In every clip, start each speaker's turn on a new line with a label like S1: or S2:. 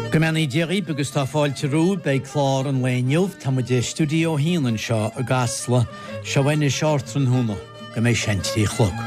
S1: Go mbeannaí Dia dhaoibh agus tá fáilte romhaibh. Beidh clár an lae inniu. Tá muid i Stiúideo 1 anseo i gCasla. Seo anois ardtráthnóna go mbeidh sé an 3 a chlog.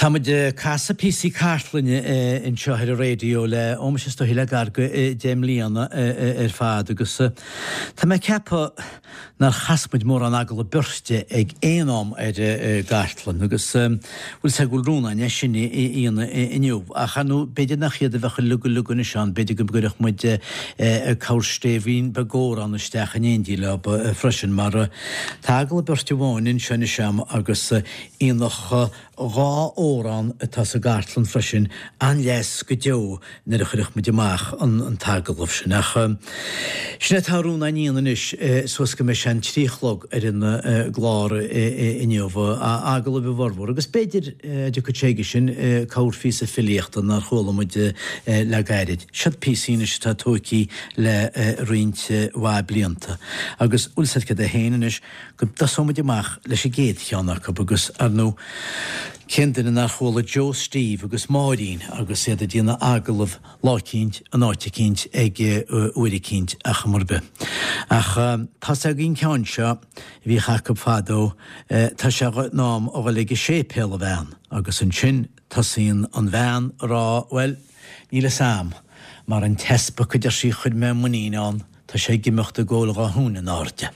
S1: Tá muid ag casadh píosaí cartlainne anseo ar an raidió le, ó muise is dóichí le gar go 10 mbliana ar fad agus tá mé ag ceapadh nár chas muid mórán agallamh beirte ag aon am ar an gcartlann agus bhfuil 'fhios a'd go bhfuil Rónán é sin a dhéanamh inniu ach ar ndóigh b'fhéidir nach iad a bheadh uilig uilig anois ann, b'fhéidir go gcuirfeadh muid corrstéibhín beag amhrán isteach in éindí leo freisin mar tá agallamh beirte amháin anseo anois a'm agus aonach 2 amhrán atá sa gcartlann freisin, an-leas go deo nuair a chuirfeadh muid amach an t-agallamh sin. Ach sin é atá Rónán a dhéanamh anois suas go mbeidh sé an 3 a chlog ar an gclár inniu, agallaimh a bhformhór, agus b'fhéidir, a dtiocfaidh sé aige sin, corrphíosa filíochta nár chuala muid le gairid. Siod píosaí anois atá tóigthe le roinnt mhaith blianta. Agus bhfuil 'fhios a'd céard é féin anois, go dtosóidh muid amach leis an gcéad cheann acu agus, ar ndóigh, cén duine nár chuala Joe Steve agus Máirín agus iad ag déanamh agallamh lá eicínt, in áit eicínt, ag uair eicínt, ar chuma ar bith. Ach tá 's againn an ceann seo a bhíodh acu fadó, tá sé in am a dhul ag an séipéal, a bhean, agus ansin tosaíonn an bhean a rá, bhuel, níl 'fhios a'm, mar an t-easpag a deir sí chuir mé muinín ann, Tá sé ag imeacht ag ól dhá thúin in airde.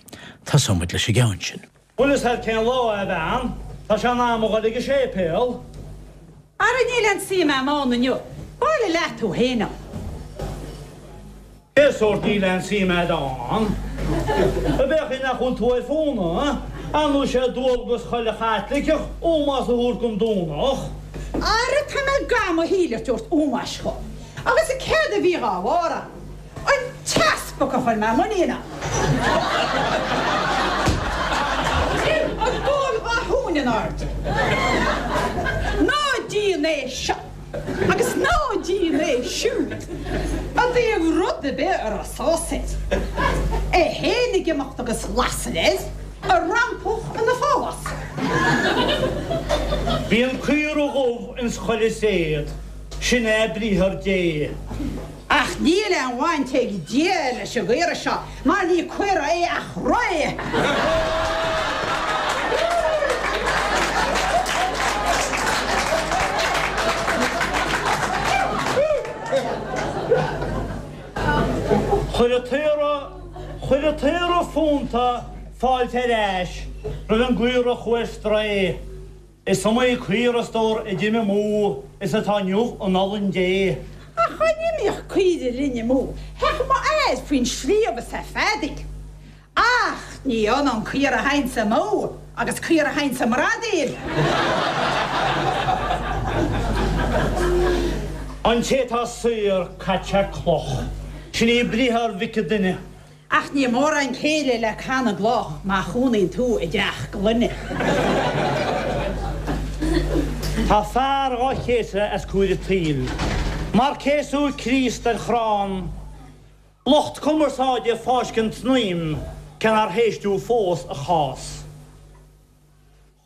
S1: Tosóidh muid leis an gceann sin.
S2: Bhfuil fhios a'd cén lá é, a bhean? Tá sé in am a dhul ag an séipéal.
S3: Ara níl aon suim a'm ann inniu. Bailigh leat thú fhéin ann.
S2: Cén sórt níl aon suim a'd ann? Ab é an chaoi nach bhfuil tú ar fónamh? Ar ndóigh sé dualgas chuile Chaitliceach ómós a thabhairt don Domhnach.
S3: Ara tá mé gan mo shíl a tabhairt ómóis dhó. Agus céard a bhí dhá bharr ann? An t-easpag a chuir mé muinín ann. Ag ól dhá thúin in airde. Ná déan é seo agus ná déan é siúd i dtaobh rud ar bith a raibh sás air. É fhéin ag imeacht agus lasair air, a rampach ina phálás.
S2: Bíonn caora dhubh ins chuile tréad, sin é briathar Dé.
S3: Ach níl aon bhaint ag Dia leis an gcaora seo, mar ní caora é ach ré!
S2: Chuir an t-aora, chuir an t-aora fónta fáilte ar ais roimh an gcaora a chuaigh ar strae. Is iomaí caora, a stór, a d'imigh amú is atá inniu in olann Dé.
S3: Ach dá n-imíodh caoire linn amú, théadh m'fhear faoin sliabh is é ag feadaíl. Ach ní ionann caora a théanns amú agus caora a théanns i mbradaíl.
S2: An té atá saor, caite sé cloch. Sin í briathar Mhic an Duine.
S3: Ach ní mórán céille le canna gcloch má chónaíonn tú i dteach gloine.
S2: Tá fear dhá chéasadh as cúir an tsaoil mar céasadh Críost ar chrann. Lucht cumarsáide ag fáiscint snaidhm cé nár héisteadh fós a chás.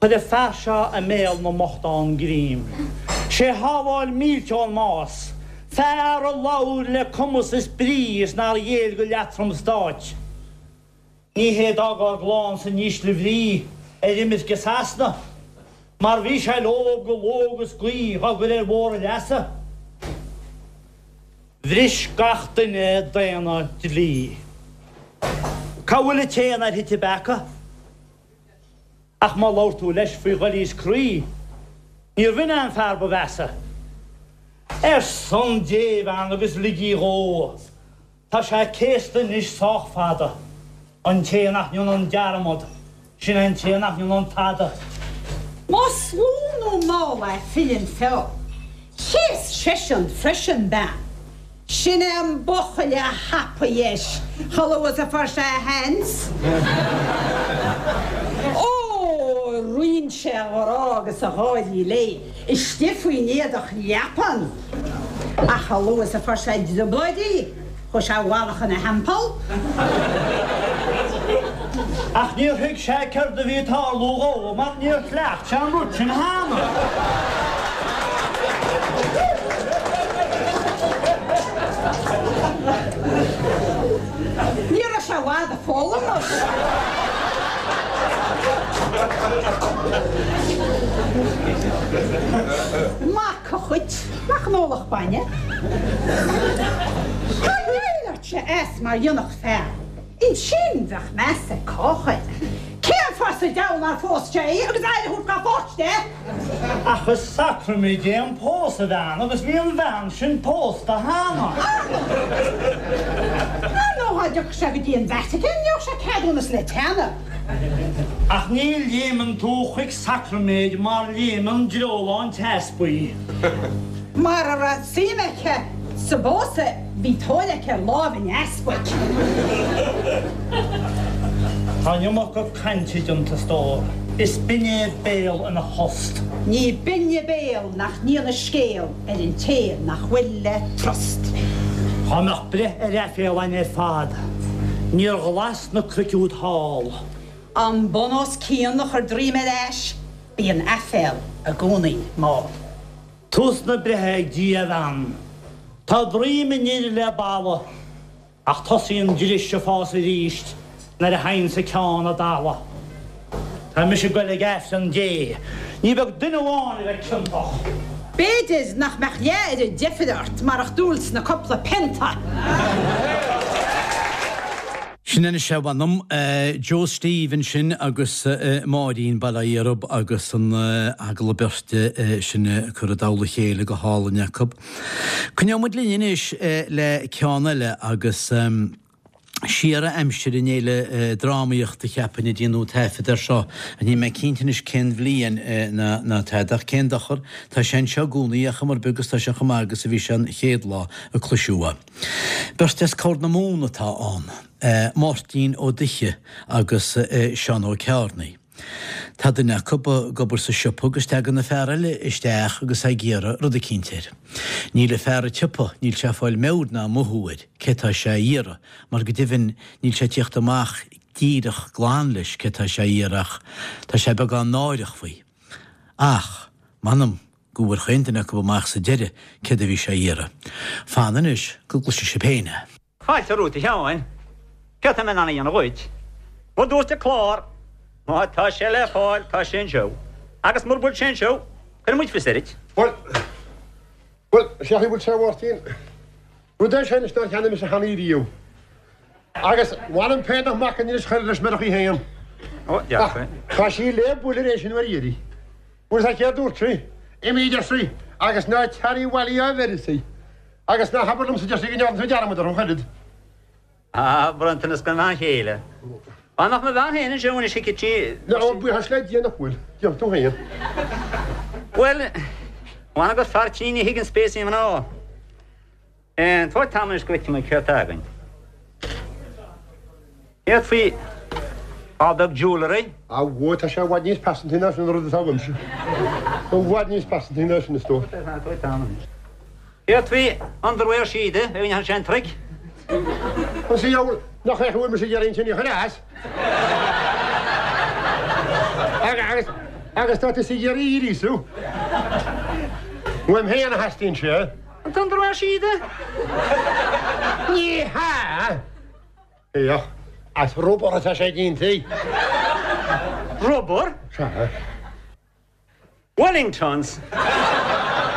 S2: Chuir an fear seo i mbéal na mbochtán greim. Sé shábháil mílte ón mbás. Fear a labhair le cumas is brí is nár ghéill go leatrom stáit. Ní hé d'fhág ár gclann san ísle bhrí ar imirce Sasana, mar bhí sé leob go ló agus gaoth dhá gcur ar bhóthar a leasa. Bhris gach duine daonna dlí. Cá bhfuil an té nár thit i bpeaca? Ach má labhair tú leis faoi dhoilíos croí, níorbh in é an fear ba mheasa. Ar son Dé, a bhean, agus lig í dhó. Tá sé céasta anois sách fada. An té nach ndéanann dearmad, sin é an té nach ndéanann tada.
S3: Más lú nó mall é filleann feó. Chéas seisean freisin bean. Sin é an buachaill a thapaigh leis chomh luath is a fuair sé a sheans. Ó, roinn sé a ghrá agus a gháirí léi istigh faoin éadach leapan. Ach chomh luath is a fuair sé i dtrioblóid í, chuaigh sé i bhfalach ina theampall.
S2: Ach níor thuig sé céard a bhí ag tarlú dhó mar níor chleacht sé an rud sin cheana.
S3: Ní raibh sé i bhfad ag foghlaim anois. Mac a chuit, nach n-ólfadh bainne. Dá ndéileáilfeadh sé as mar dhéanfadh fear. Ansin bheadh meas ag cách air. Cén fáth sa deabhal nár phós sé í agus aire a thabhairt dá pháiste?
S2: Ach is sacraimid é an pósadh, a bhean, agus bhí an bhean sin pósta cheana.
S3: Ar ndóigh dá dtiocfadh sé go dtí an Vatican gheobhadh sé ceadúnas le teannadh.
S2: Ach ní léimeann tú chuig sacraiméid mar léimeann dreolán teaspaí.
S3: Mara raibh suim aici sa bpósadh bhí tóir aici ar láimh an easpaig.
S2: Tá an iomarca cainte déanta, a stór. Is binne béal ina thost.
S3: Ní binne béal nach ndéanadh scéal ar an té nach bhfuil le trust.
S2: Dhá mbeadh breith ar aiféala againn ar fad, níor ghlas na cnoic úd thall.
S3: An bun os cionn a chur droim ar ais, bíonn aiféal i gcónaí mall.
S2: Tús na breithe ag Dia, a bhean. Tá droim an fhir le balla, ach tosaíonn dris ag fás arís nuair a thaganns an ceann i dtalamh. Tá mise ag goil ag Aifreann Dé. Ní beag duine amháin a bheidh ciontach.
S3: B'fhéidir nach mbeadh leath oiread deifre ort marach dúil sna cupla pionta.
S1: Sin anois é, mh'anam. Joe Steve ansin agus Máirín, bail ó Dhia orthub, agus an agallamh beirte sin curtha i dtoll a chéile go hálainn acu. Coinneoidh muid linn anois le ceann eile agus siar ó aimsir an Fhéile Drámaíochta cheapfainn a déanadh taifead air seo ach níl mé cinnte anois cén bhliain ná tada ach cén dochar, tá sé anseo i gcónaí ar chuma ar bith agus tá sé chomh maith agus a bhí sé an chéad lá a cloiseadh é. Beirt as Corr na Móna atá ann, Máirtín Ó Duiche agus Seán Ó Ceárnaigh. Tá duine acu ag obair sa siopa agus tagann an fear eile isteach agus é ag iarraidh rud eicínt air. Níl an fear an tsiopa, níl sé ag fáil meabhair ná mothú air cé tá sé a iarraidh, mar go deimhin níl sé ag tíocht amach díreach glan leis cé tá sé a iarraidh ach tá sé beagán náireach faoi. Ach, m'anam, go bhfuair chaon duine acu amach sa deireadh céard a bhí sé a iarraidh. Fan anois go gcloisfidh sibh féin é.
S4: Fáilte romhat a Sheáin. Céard tá mé in ann a dhéanamh dhuit? Mar dúirt an clár, má tá sé le fáil, tá sé anseo. Agus mura bhfuil sé anseo, cuirfidh muid fios air duit.
S5: Bhuel, bhuel, sé chaoi bhfuil sé a Mháirtín. Rud é sin anois nár cheannaigh mise cheana riamh. Agus mh'anam féin nach mbacainn anois chuir leis murach í féin.
S4: Ó, dearfa.
S5: Ach tá sí le bualadh ar éis an uair dheiridh. Bhuel, is céard dúirt sí? Imigh, a deir sí, agus ná tar abhaile á bheireadh sí. Agus ná habair liomsa, a deir sí, go ndearna tú dearmad orm ach oiread.
S4: Ah, bronntanas don bhean chéile. Dá mbeadh mo bhean féin anseo anois thuigfeadh sí.
S5: Ó, buíochas le Dia nach bhfuil. Déarfaidh tú féin.
S4: Bhuel, m'anam gur fear tinn a thuigeann béasaí mná. Tabhair tamall anois go bhfeicfidh mé céard tá againn. Céard faoi ál beag jewellery?
S5: Á, bhuel, tá sé i bhfad níos pearsantaí ná sin an rud atá uaimse. I bhfad níos pearsantaí ná sin, a stór.
S4: Tabhair tamall anois. Céard faoi underwear síoda, a dhéanfaidh sé an trick?
S5: An sa diabhal nach é a bhfuil mise ag iarraidh ansin a chur as? Agus. Agus tá tusa ag iarraidh í a ghríosú. Uaim féin a theastaíonn sé.
S4: An t-underwear síoda?
S5: Ní hea! Féach, as rubar atá sé déanta.
S4: Rubar?
S5: Sea.
S4: Wellingtons.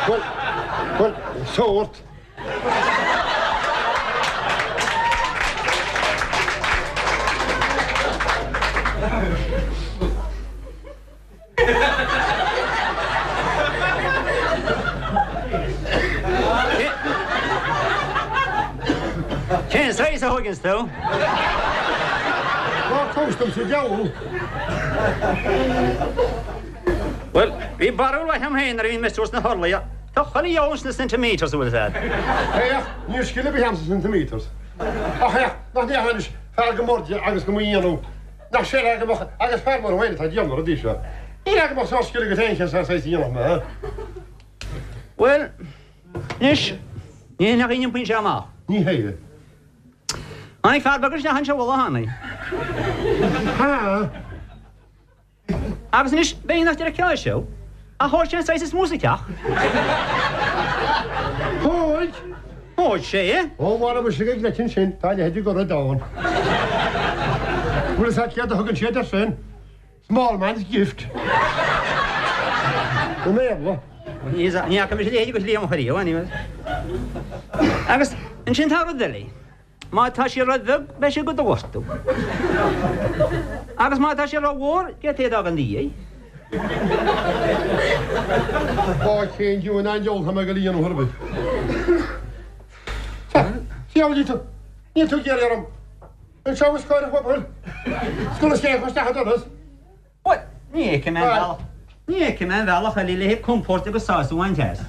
S5: Bhuel, bhuel, sórt.
S4: Cén saghas a thóigeanns tú?
S5: Ná tomhais domsa deabhal.
S4: Bhuel, bhí barúil mhaith agam féin nuair a bhí mé suas sna horlaí. Tá chuile dheabhal sna centimetres, an bhfuil fhios a'd.
S5: Féach, níl scil ar bith a'm sna centimetres. Ach féach, nach ndéarfá anois, fear go mb'airde agus go mba dhéanamh, nach séala go mbeadh, agus fear mar thú féin atá ag déanamh na rudaí seo. Níl go mbeadh sórt scil agat féin cén saghas a dhéanfadh mé.
S4: Bhuel, anois, ní hé nach iompaíonn sé amach.
S5: Ní hé.
S4: Tháinig fear beag isteach anseo an lá cheana.
S5: Ha!
S4: Agus anois, b'fhéidir nach dteirceáil sé, ach thóg sé an saghas is mó sa teach.
S5: Thóg?
S4: Thóg sé é.
S5: Ó, mhara mise go gleoite ansin, tá a leithéid de rud ann. Bhfuil fhios a't céard a thugann siad air sin? Small man's gift. I mBéarla.
S4: Ní fhaca mise a leithéid de shlí amach ariamh, anyways. Agus ansin tá rud eile. Má tá sé ró-bheag, beidh sé do do ghortú. Agus má tá sé ró-mhór, d'fhéadfaí é a d'fhágáil ina dhiaidh.
S5: Ó, cén diabhal an diabhal tá mé ag dul a dhéanamh ar bith. Sea, níl tú, níl tú ag iarraidh orm. Anseo os comhair an phobail. Scoil is cé isteach an doras.
S4: Bhuel, ní fheicim aon bhealach, ní fheicim aon bhealach eile le haghaidh compóirt agus sásamh a bhaint as.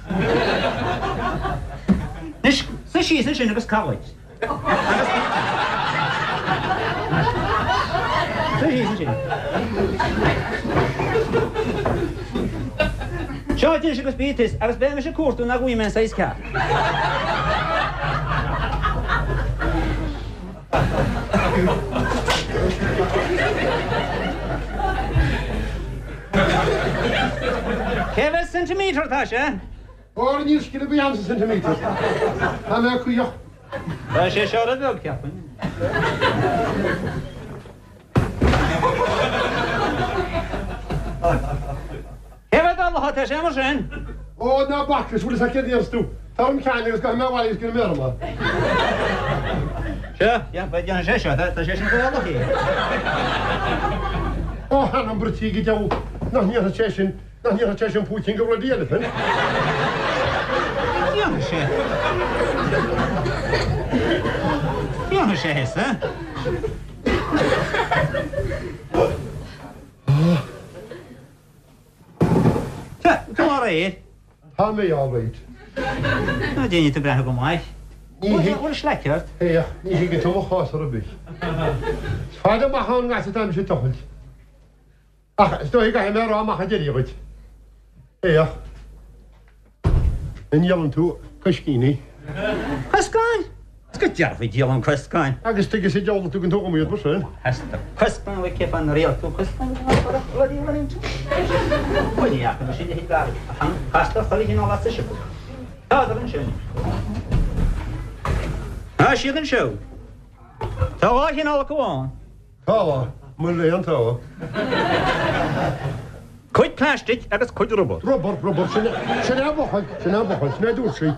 S4: Anois, suigh síos ansin agus caith dhuit. Agus. Suigh síos ansin. Seo duit anois agus bí tis, agus beidh mise ag cuartú nach bhfaighidh mé an saghas ceart. Cé mhéad centimetre atá sé?
S5: Óra níl scil ar bith a'm sa centimetres. Tá mé caoch.
S4: Tá sé seo ró-bheag, cheapfainn. Cé mhéad orlach atá sé mar sin?
S5: Ó, ná bac leis, bhfuil fhios a't céard a dhéanfas tú. Tabhair dom ceann agus gabhfaidh mé abhaile agus déanfaidh mé orm é.
S4: Seo, déanfaidh sé seo, tá sé sin fá orlach é.
S5: Ó, th'anam bruití go deabhal, nach ndéanfaidh sé sin, nach ndéanfaidh sé sin púicín de bloody elephant.
S4: Déanfaidh sé. Déanfaidh sé thusa. Tá tú alright.
S5: Tá mé alright.
S4: Ná déanfaidh tú breathnú go maith.
S5: Ní thig.
S4: Bhfuil slaic ort?
S5: Féach, ní thuigeann tú mo chás ar bith. Is fada amach ón ngas atá mise ag tochailt. Ach is dóigh go gcaithfidh mé a rá amach ar deireadh dhuit. Féach. An ndíolann tú coiscíní?
S4: Coscáin? Is go dearfa díolaim coscáin.
S5: Agus tuige sa diabhal a dtugann tú dhom iad mar sin?
S4: Theastaigh coscáin uait cé fáth nár iarr tú coscáin bloody Wellington? Bhuel ní fhaca mise a leithéid d'fhear ach castar chuile chineál as sa siopa. Tádar ansin. Tá siad anseo. Tá dhá chineál acu ann.
S5: Tá, mo léan tá.
S4: Cuid plaistic agus cuid rubar.
S5: Rubar, rubar, sin é, sin é an focal, sin é an focal, sin é a dúirt sí.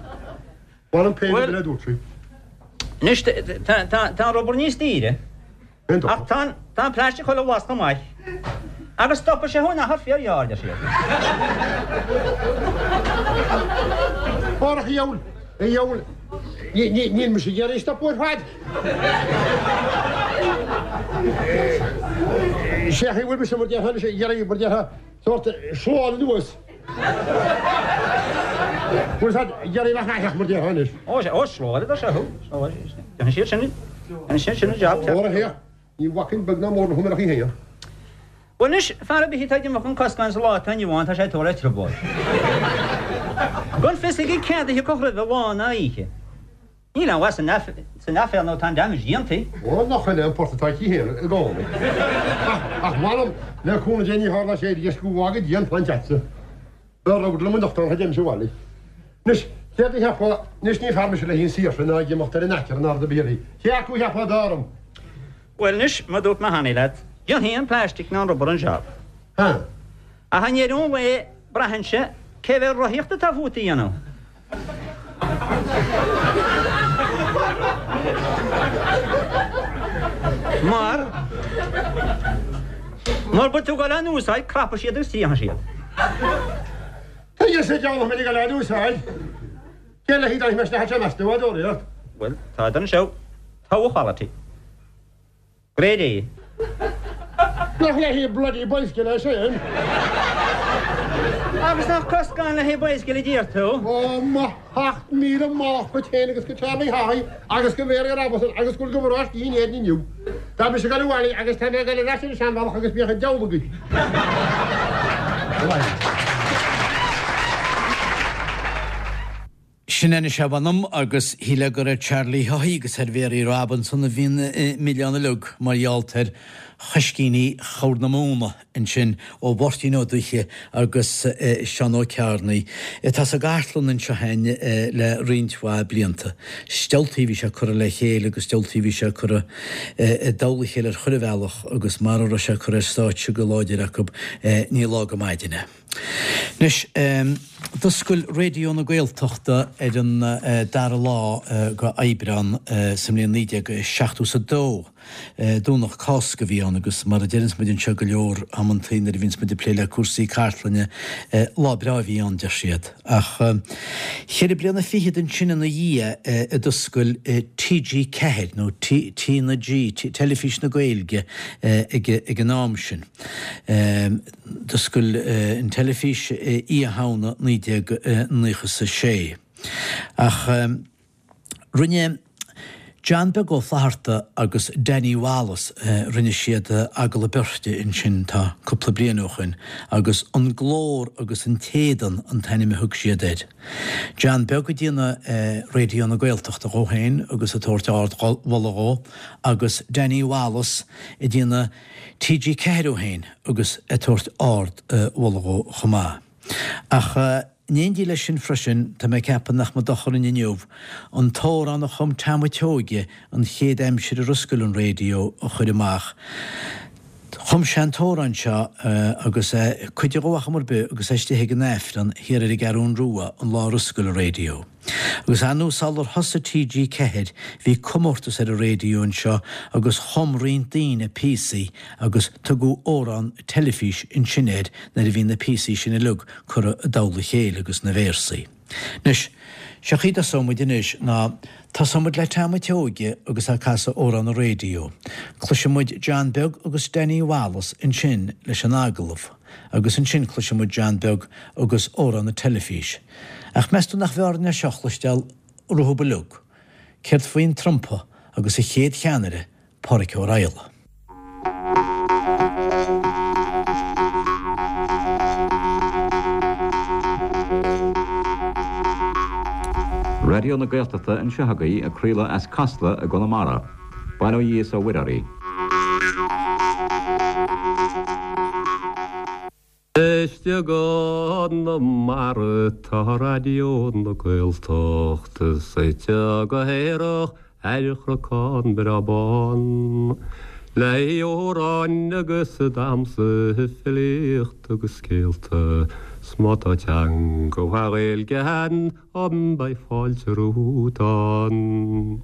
S5: Bhain an péine
S4: Bhuel,
S5: sin é a dúirt sí.
S4: anois tá, tá, tá an rubar níos daoire.
S5: Aon
S4: Ach tá an, tá an plastic chuile bhlas chomh maith. Agus stopfaidh sé thú in achar fíorghearr, deir siad.
S5: Árach a dhiabhail, a dhiabhail, ní, ní, níl mise ag iarraidh stopadh ar fad. Sé a bhfuil mise mar déarfá anois ag iarraidh mar déarfá sórt slán anuas. Bhfuil siad ag iarraidh bheith aitheach mar déarfá anois.
S4: Ó, ó, slán a seo thú. Déanfaidh siad sin, déanfaidh siad sin an jab.
S5: Óra féach, ní bhacfainn beag ná mór le húinéireacht í féin.
S4: Bhuel anois, fear ar bith atá ag imeacht chun coscáin sa lá atá inniu ann, tá sé ag tabhairt le trioblóid. Gan fios aige céard a thiocfadh roimhe lá ná oíche. Níl aon mhaith san aiféala nó tá an damage déanta.
S5: Ó, nach in é an port atá aici féin i gcónaí. Ach, m'anam, le cúnamh Dé ní tharlóidh sé arís go bhfága Dia an plant agatsa. B'fhearr rud liom anocht ná a dtéimse abhaile. Anois, céard a cheapfá, anois ní fear mise le haghaidh an saoirse ná ag imeacht ar an aicearra ná rud ar bith eile. Cé acu a cheapfá ab fhearr dom?
S4: Bhuel anois, mar a dúirt mé cheana leat, déanfaidh an plastic ná an rubber an jab.
S5: Ha.
S4: Ach i ndeireadh an lae, braitheann sé cé mhéad rothaíocht atá fút a dhéanamh. Mar, mura bhfuil tú ag dul á n-úsáid, crapfaidh siad agus triomóidh siad.
S5: Tuige sa diabhal nach mbeinn ag dul á n-úsáid? Cén le haghaidh dá mbeadh sé meas tú, a dóraíocht?
S4: Bhuel, tádar anseo. Togha quality. Grade A.
S5: Nach le haghaidh bloody bicycle é sin?
S4: Agus nach coscán le haghaidh bicycle a deir tú?
S5: Ó, mo 7,000 mallacht dhuit féin agus go Charlie Haughey agus go Mary Robinson agus go bhfuil go bhfuil in Éirinn inniu. Tá mise ag dul abhaile agus tá mé ag dul ar ais ar an seanbhealach agus bíodh an diabhal agaibh.
S1: Sin anois é mh'anam agus shílfeá gur ar Charlie Haughey agus ar Mhary Robinson a bhí an milleán uilig mar gheall ar choiscíní Chorr na Móna ansin ó Mháirtín Ó Dubhthaigh agus Seán Ó Cearnaigh atá sa gcartlann anseo againn le roinnt mhaith blianta. Is diabhaltaí a bhí sé curtha le chéile agus diabhaltaí a bhí sé curtha i dtoll a chéile ar chuile bhealach agus mara raibh sé curtha ar stáitse go láidir acu ní lá go maidin é. Anois, d'oscail Raidió na Gaeltachta ar an dara lá de Aibreán sa mbliain 1972. Domhnach Cásca a bhí ann agus mar a deireanns muid anseo go leor amantaí nuair a bhíonns muid ag plé le cúrsaí cartlainne, lá breá a bhí ann, deir siad. Ach cheithre bliana fichead ansin ina dhiaidh a d'oscail TG4, nó T na G, Teilifís na Gaeilge ag an am sin. D'oscail an teilifís Oíche Shamhna 1996. Ach rinne John Beag Ó Flatharta agus Danny Wallace, rinne siad agallamh beirte ansin, tá cúpla bliain ó shoin, agus An Glór agus an tÉadan an t-ainm a thug siad air. John Beag ag déanamh Raidió na Gaeltachta dhó féin agus ag tabhairt ard-mholadh dhó, agus Danny Wallace ag déanamh TG4 dhó féin agus ag tabhairt ard mholadh dhó chomh maith. Ach in éindí leis sin freisin, tá mé ag ceapadh nach mba dochar dúinn inniu an t-amhrán a chum Tom a' tSeoighe an chéad aimsir ar oscail an raidió a chur amach. Chum sé an t-amhrán seo agus é cuid dhó ar chuma ar bith agus é istigh ag an Aifreann thiar ar an gCeathrún Rua an lá ar oscail an raidió. Agus ar ndóigh sular thosaigh TG4 bhí comórtas ar an raidió anseo agus chum roinnt daoine píosaí agus tugadh amhrán teilifís ansin air nuair a bhí na píosaí sin uilig curtha i dtoll a chéile agus na véarsaí. Anois, seo chaoi a dtosóidh muid anois ná tosóidh muid le Tom a' tSeoighe agus é ag casadh amhrán an raidió. Cloisfidh muid John Beag agus Danny Wallace ansin leis an agallamh. Agus ansin cloisfidh muid John Beag agus amhrán na teilifís. Ach meas tú nach mb'fhearr é seo a chloisteáil rompu uilig? Céard faoin trumpa agus a chéad cheannaire, Pádhraic Ó Raghallaigh?
S6: Raidió na Gaeltachta anseo agaibh ag craoladh as Casla i gConamara. Bail ó Dhia is ó Mhuire oraibh.
S7: Istigh i gConamara tá Raidió na Gaeltachta suite go haerach ar chnocán breá bán. Le hamhráin agus damhsa, filíocht agus scéalta, 's má tá teanga mhaith Ghaeilge ann beidh fáilte romhat ann.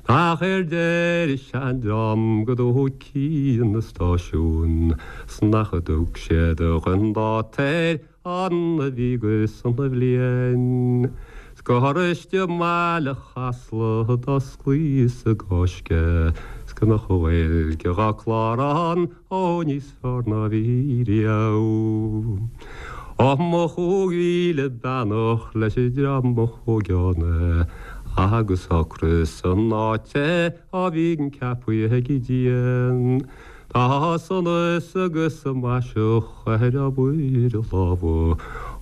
S7: Ach ar deir seandream go dtógfaí an stáisiún 's nach dtug siad dhon dáta air an a bhí go sona bhliain 's gur istigh i mbaile Chasla d'osclaíos i gCáisc 's go mbeadh an Ghaeilge dhá clár ann ó níos fearr ná bhí riamh. Ó mo 5,000 beannacht leis an dream a thóg ann agus ocras san áit a bhíonn ceapaithe ag Dia. Tá sonas agus maiseach ar obair a lámha.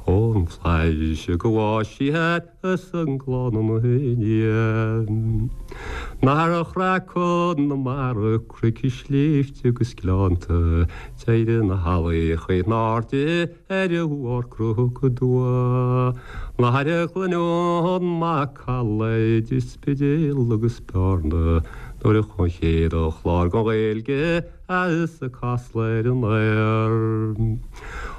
S7: Ón bhFlaitheas go bhfáis siad is an gclann ina ndiaidh. Nár chraith Conamara cnoic is sléibhte agus gleannta, d'éirigh na healaí in airde ar bharr Cnoc Dua. Nár chluineadh an macalla idir Spidéal agus Bearna nuair a chuaigh an chéad chlár den Ghaeilge as Casla ar an aer.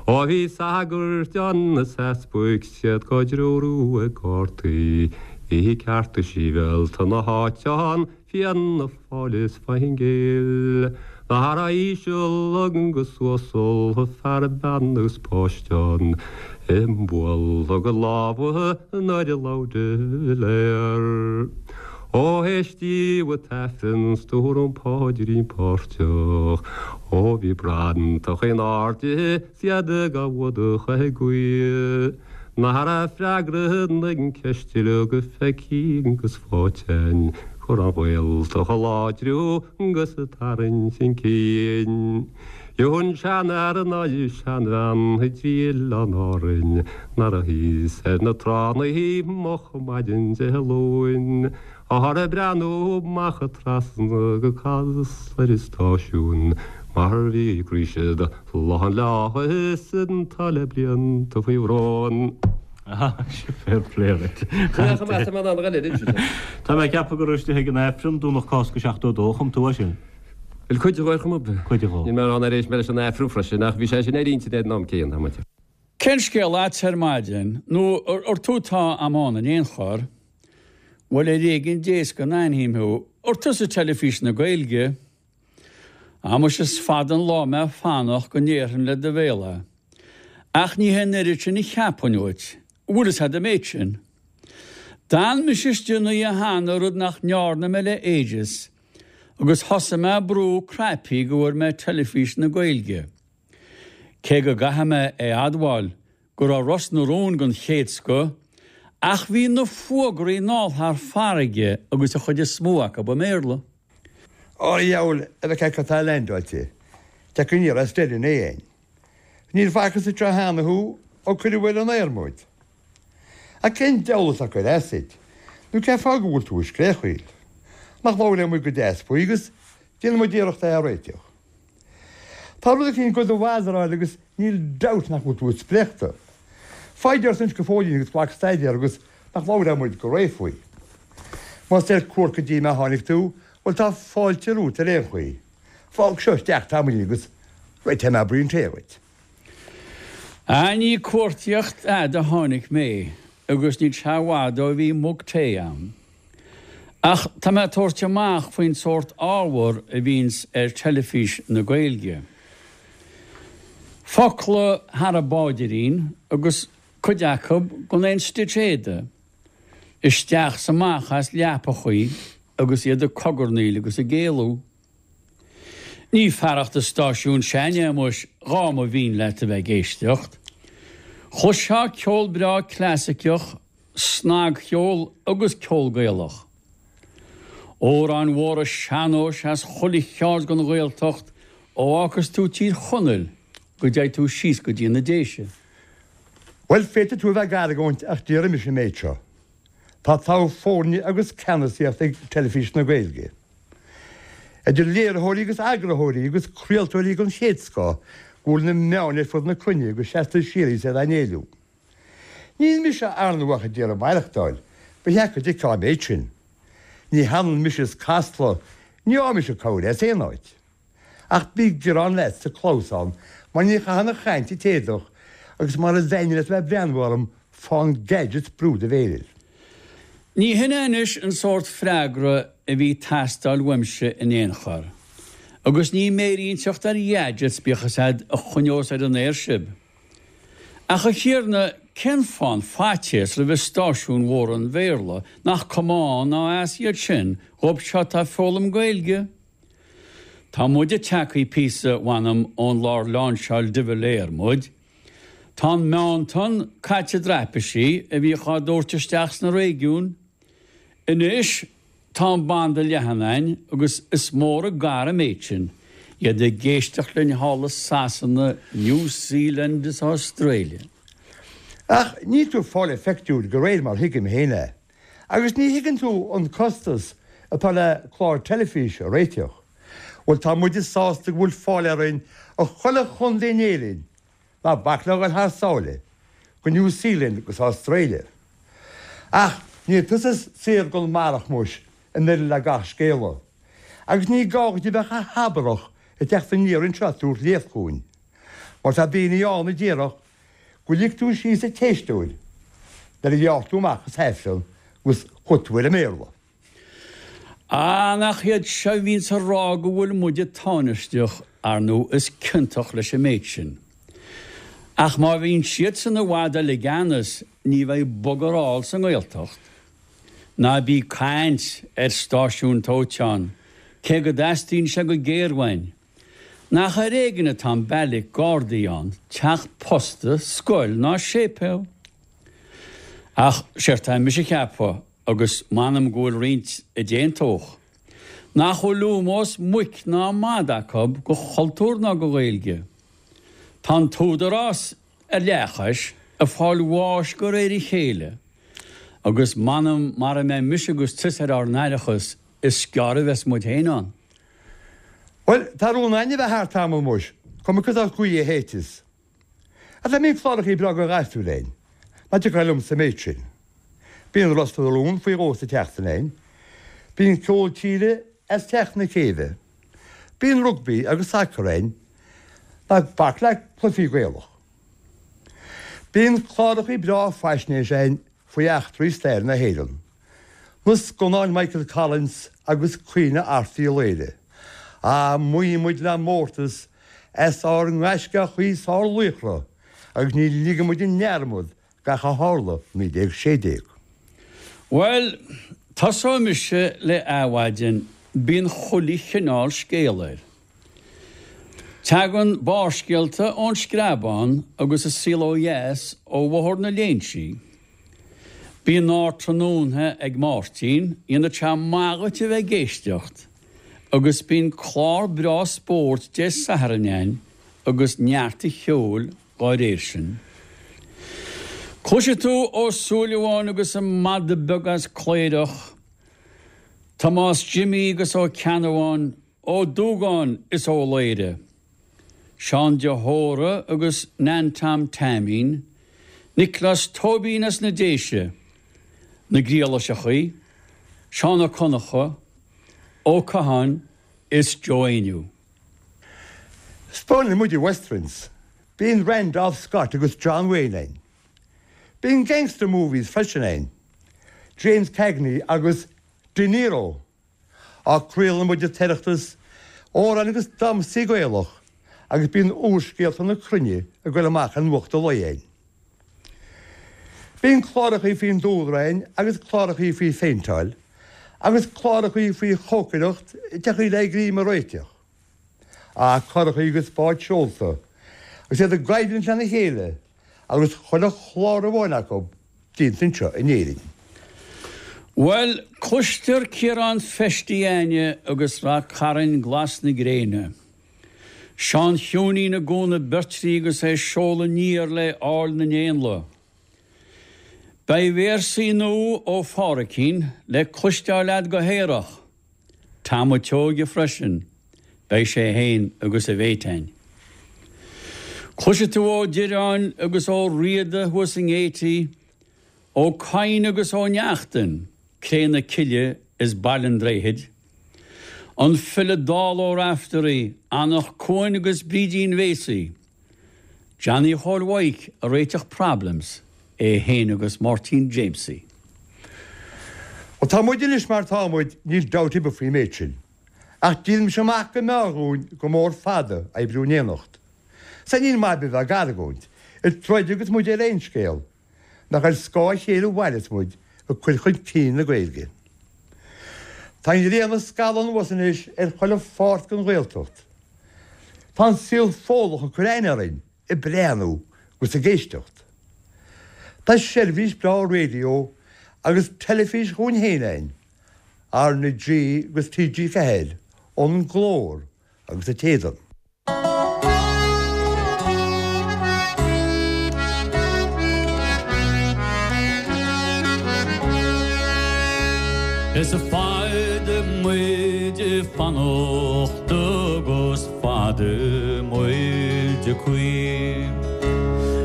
S7: Ó bhí sagairt ann is easpaig 's iad dhá dtreorú ag gardaí, bhí cearta sibhialta na háite ann, Fianna Fáil is Fine Gael. Nach raibh íseal agus uasal, fear bean agus páiste ann, ag bualadh a lámha nuair a labhair de Valera. Ó éistíodh an tAifreann 's dúradh an paidrín páirteach, ó bhí bratach in airde 's iad ag fuadach ag guí. Nach raibh freagra na gceist uilig feicthe agus faighte a'inn, chun an Ghaeltacht a láidriú agus a tarraingt chun cinn. Gheobhaidh an seanfhear ná seanbhean i dtrí oileán Árainn nach raibh thíos ar na tránna moch maidin Dé Luain. Táthar ag breathnú amach trasna go Casla ar an stáisiún mar bhí ag rith siad lán lá is atá le blianta faoi bhrón.
S8: Fair play duit. Tá mé ag ceapadh go raibh istigh ag an Aifreann Domhnach Cásca 72 a chum tú é sin.
S9: Bhuel, cuid de ar chuma ar bith.
S8: Cuid de.
S9: Níl mé ag rá nár éist mé leis an Aifreann freisin ach bhí sé sin ar intinn ag an am céanna, tá muid.
S10: Cén scéal leat ar maidin? Nó ar tú atá agam ann in aon chor? Bhuel, ar éigean Dé is go n-aithním thú. Ar tusa Teilifís na Gaeilge? Ah muise is fada an lá mé ag fanacht go ndéarfainn le do bhéal é. Ach ní hé an oiread sin a cheapfainn uait. Bhfuil fhios a'd an méid sin? D'fhan mise istigh an oíche cheana rud nach ndearna mé le ages agus thosaigh mé ag brú cnaipí go bhfuair mé Teilifís na Gaeilge. Cé go gcaithfidh mé é a admháil go raibh Ros na Rún den chéad scoth, ach bhí na fuagraí anall thar farraige agus an chuid is mó acu i mBéarla.
S11: Ó a dheabhail, a bheith cad tá leaindeáilte, teacht aniar as Doire in éan. Níor facthas anseo cheana thú ó cuireadh ar an aer muid. Ach cén diabhal atá ag cur as duit, nó cén fáth go bhfuil tú ag scréachaíl? Nach labhróidh muid go deas faoi agus déanfaidh muid iarracht é a réiteach. Tá rud eicínt do do bhazaráil agus níl dabht nach bhfuil tú spréachta. Foighid ort anois go fóillín agus glac staidéar agus nach labhróidh muid go réidh faoi. Más ar cuairt go dtí mé a tháinig tú, bhuel tá fáilte romhat ar aon chaoi. Fág seo isteach tamaillín agus réiteoidh mé braon tae dhuit.
S10: Ah ní cuartaíocht fhada a tháinig mé agus níl sé i bhfad ó bhí mug tae a'm. Ach tá mé ag tabhairt amach faoin sórt ábhar a bhíonns ar Teilifís na Gaeilge. Focla thar an bpáidirín agus cuid acu gan aon stitch éadaigh, isteach 's amach as leapachaí agus iad ag cogarnaíl agus ag éalú. Ní fearacht an stáisiún sin é muis dhá mba mhian leat a bheith ag éisteacht. Chloisfeá ceol breá clasaiceach snagcheol agus ceol Gaelach. Amhráin mhóra sean-nóis as chuile cheard den Ghaeltacht ó fhágfas tú Tír Chonaill go dteigh tú síos go dtí na Déise.
S11: Bhuel, féadfaidh tú a bheith ag argóint ach déarfaidh mise an méid seo. Tá togha foirne agus ceannasaíocht ag Teilifís na Gaeilge. Idir léiritheoirí agus eagarthóirí agus craoltóirí den chéad scoth go bhfuil na meáin ar fud na cruinne go seasta síoraí is iad á n-éiliú. Níl mise ar ndóigh ach ag iarraidh maireachtáil, ba cheart go dtuigfeá an méid sin. Ní hionann mise is Casla, ní fhaighidh mise cabhair as aon áit. Ach bí giorrán leat sa clamhsán mar ní chaitheann an chaint an t-éadach agus mar is ainne leat a bheith ag breathnú orm fán gadgets brú do mhéir air.
S10: Ní hin é anois an sórt freagra a bhí ag teastáil uaimse in aon chor. Agus ní méirínteacht ar ghadgets bíodh is iad a choinneos ar an aer sibh. Ach a Thiarna, cén fáth an faitíos roimh stáisiúin mhóra an Bhéarla, nach cuma ann ná as iad sin dhóibh seo atá ag foghlaim Gaeilge? Tá muide tagthaí píosa, mh'anam, ón lár láinseáil de Valera muid. Tá an meántonn caite i dtraipisí a bhíodh á dtabhairt isteach sna réigiúin. Anois, Tá an banda leathan a'inn agus is mór an gar an méid sin, iad ag éisteacht linn thall i Sasana, New Zealand is Australia.
S11: Ach níl tú ag fáil an phictiúir de réir mar thuigim féin é. Agus ní thuigeann tú an costas atá le clár teilifíse a réiteach. Bhuel tá muide sásta go bhfuil fáil orainn i chuile chontae in Éirinn, ná bac le dhul thar sáile, go New Zealand agus Australia. Ach níl tusa saor gon mbarrach muis in uireadh le gach scéala. Agus ní gá dhuit a bheith chomh habarach ag teacht aniar anseo ag tabhairt léacht chugainn. Mar tá daoine ann a déarfadh go lig tú síos an t-éisteoir nuair a ghearr tú amach as Aifreann agus chuaigh tú ar an mBéarla.
S10: Ah, nach iad seo a bhíonns ag rá go bhfuil muide tánaisteach, ar ndú is ciontach leis an méid sin. Ach má bhíonn siadsan i bhfad eile i gceannas ní bheidh bugger all sa nGaeltacht. Ná bí ag caint ar stáisiún tóiteán, cé go dteastaíonn sé go géar uainn. Nach ar éigean atá an beairic Gardaí ann, teach posta, scoil ná séipéal. Ach séard tá mise a cheapadh, agus m'anam go bhfuil roinnt a d'aontódh, nach bhfuil ómós muic ná mada acu go chultúr ná go Ghaeilge. Tá an t-údarás ar leathchois ag fáil bháis go réir a chéile, agus m'anam mara mbeidh mise agus tusa ar ár n-aireachas is gearr a bheas muid féin ann.
S11: Bhuel, tá rún againn a bheith thart tamall muis, cuma cad as gaoth a shéideas. Ach dá mbíonn clárachaí breá go ghasúir againn, ná tiocfadh liomsa an méid sin. Bíonn Ros na Rún faoi dhó sa tseachtain againn. Bíonn ceol tíre as Teach na Céibhe. Bíonn rugbaí agus sacar againn. Ná bac le cluichí Gaelach. Bíonn clárachaí breá faisnéise againn faoi eachtraí stair na hÉireann. Na scannáin Michael Collins agus Caoineadh Airt Uí Laoghaire. Ah, maíonn muid le mórtas as ár ngaisceachaí 's ár laochra agus ní ligeann muid i ndearmad gach a tharla 1916.
S10: Bhuel, tosóidh mise le Adhmhaidin, bíonn chuile chineál scéal air. Tagann Barrscéalta ón Screabán agus An Saol Ó Dheas ó Bhóthar na Léinsí. Bíonn Ardtráthnóna ag Máirtín, dhéanfadh sé maith dhuit a bheith ag éisteacht, agus bíonn clár breá spóirt Dé Sathairn ann agus neart a cheoil dá réir sin. Cloisfidh tú Ó Súilleabháin agus an madadh beag as Cléireach, Tomás Jimí agus Ó Ceannabháin, Ó Dúgáin is Ó Laoire, Seán de hÓra agus Nan Tom Taimín, Nioclás Tóibín as na Déise, Na Griallaiseachaí, Seán Ó Conchadha, Ó Catháin is Joe Éinniú.
S11: 'Spáineann muid westerns. Bíonn Randolph Scott agus John Wayne ann. Bíonn gangster movies freisin ann. James Cagney agus De Niro. Á craolann muid an tOireachtas, amhráin agus damhsaí Gaelach agus bíonn úrscéalta na cruinne ag goil amach ar Nuacht an Lae ann. Bíonn clárachaí faoin dúlra ann agus clárachaí faoi phéinteáil agus clárachaí faoi chócaireacht deachaí le greim a réiteach. Á curachaí agus báid seolta agus iad i gcoimhlint lena chéile agus chuile chlár amháin acu déanta anseo in Éirinn.
S10: Bhuel, cloistear Ciarán Feistí Aine agus Rath Cairn glas na gréine. Seán Chiúinín i gCuan na Beirtrí agus é ag seoladh aniar le Áill na nÉanlaith. Beidh véarsaí nua ó Phádhraic le cloisteáil a'd go haerach. Tom a' tSeoighe freisin, beidh sé fhéin agus a mhéit a'inn. Cloisfidh tú Ó Direáin agus Ó Riada thuas i nGaiety, Ó Cadhain agus Ó Neachtain, Cré na Cille is Baile an Droichid, an file Dall Ó Raiftearaí, Anach Cuain agus Brídín Bhéasaí. Johnny Chóil Mhaidhc a réiteach problems, é fhéin agus Máirtín Jamesie.
S11: Ó tá muid anois mar tá muid, níl dabht ar bith faoin méid sin. Ach díolaimse amach go mb'fhearr dhúinn go mór fada oibriú in éineacht. Sea níl maith ar bith bheith ag argóint, ag troid agus muid ar aon scéal, nach ar scáth a chéile a mhaireas muid ag cur chun cinn na Gaeilge. Tá an ghrian ag scalladh anuas anois ar chuile pháirt den Ghaeltacht. Tá an saol Fódlach ag cur aithne orainn ag breathnú agus ag éisteacht. Tá seirbhís breá raidió agus teilifís dhúinn féin againn, R na G agus TG4, An Glór agus An tSéideán.
S12: Is fada muid ag fanacht agus fada muid ag caoin.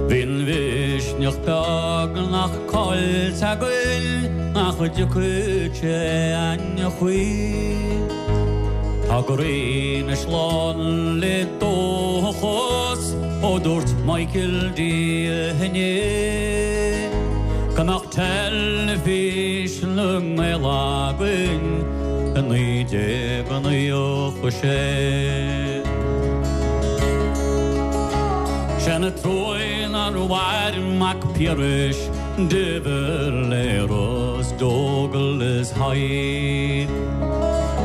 S12: Bhí an mhisneach beagnach caillte againn nach dtiocfadh sé againn choíche. Tá an ghrian anois lán le dóchas ó dúirt Michael D inné go mbeadh Teilifís na nGael againn i 1996. Sé an truaigh nár mhair Mac Piarais, De Valera 's Dubhghall is Hyde.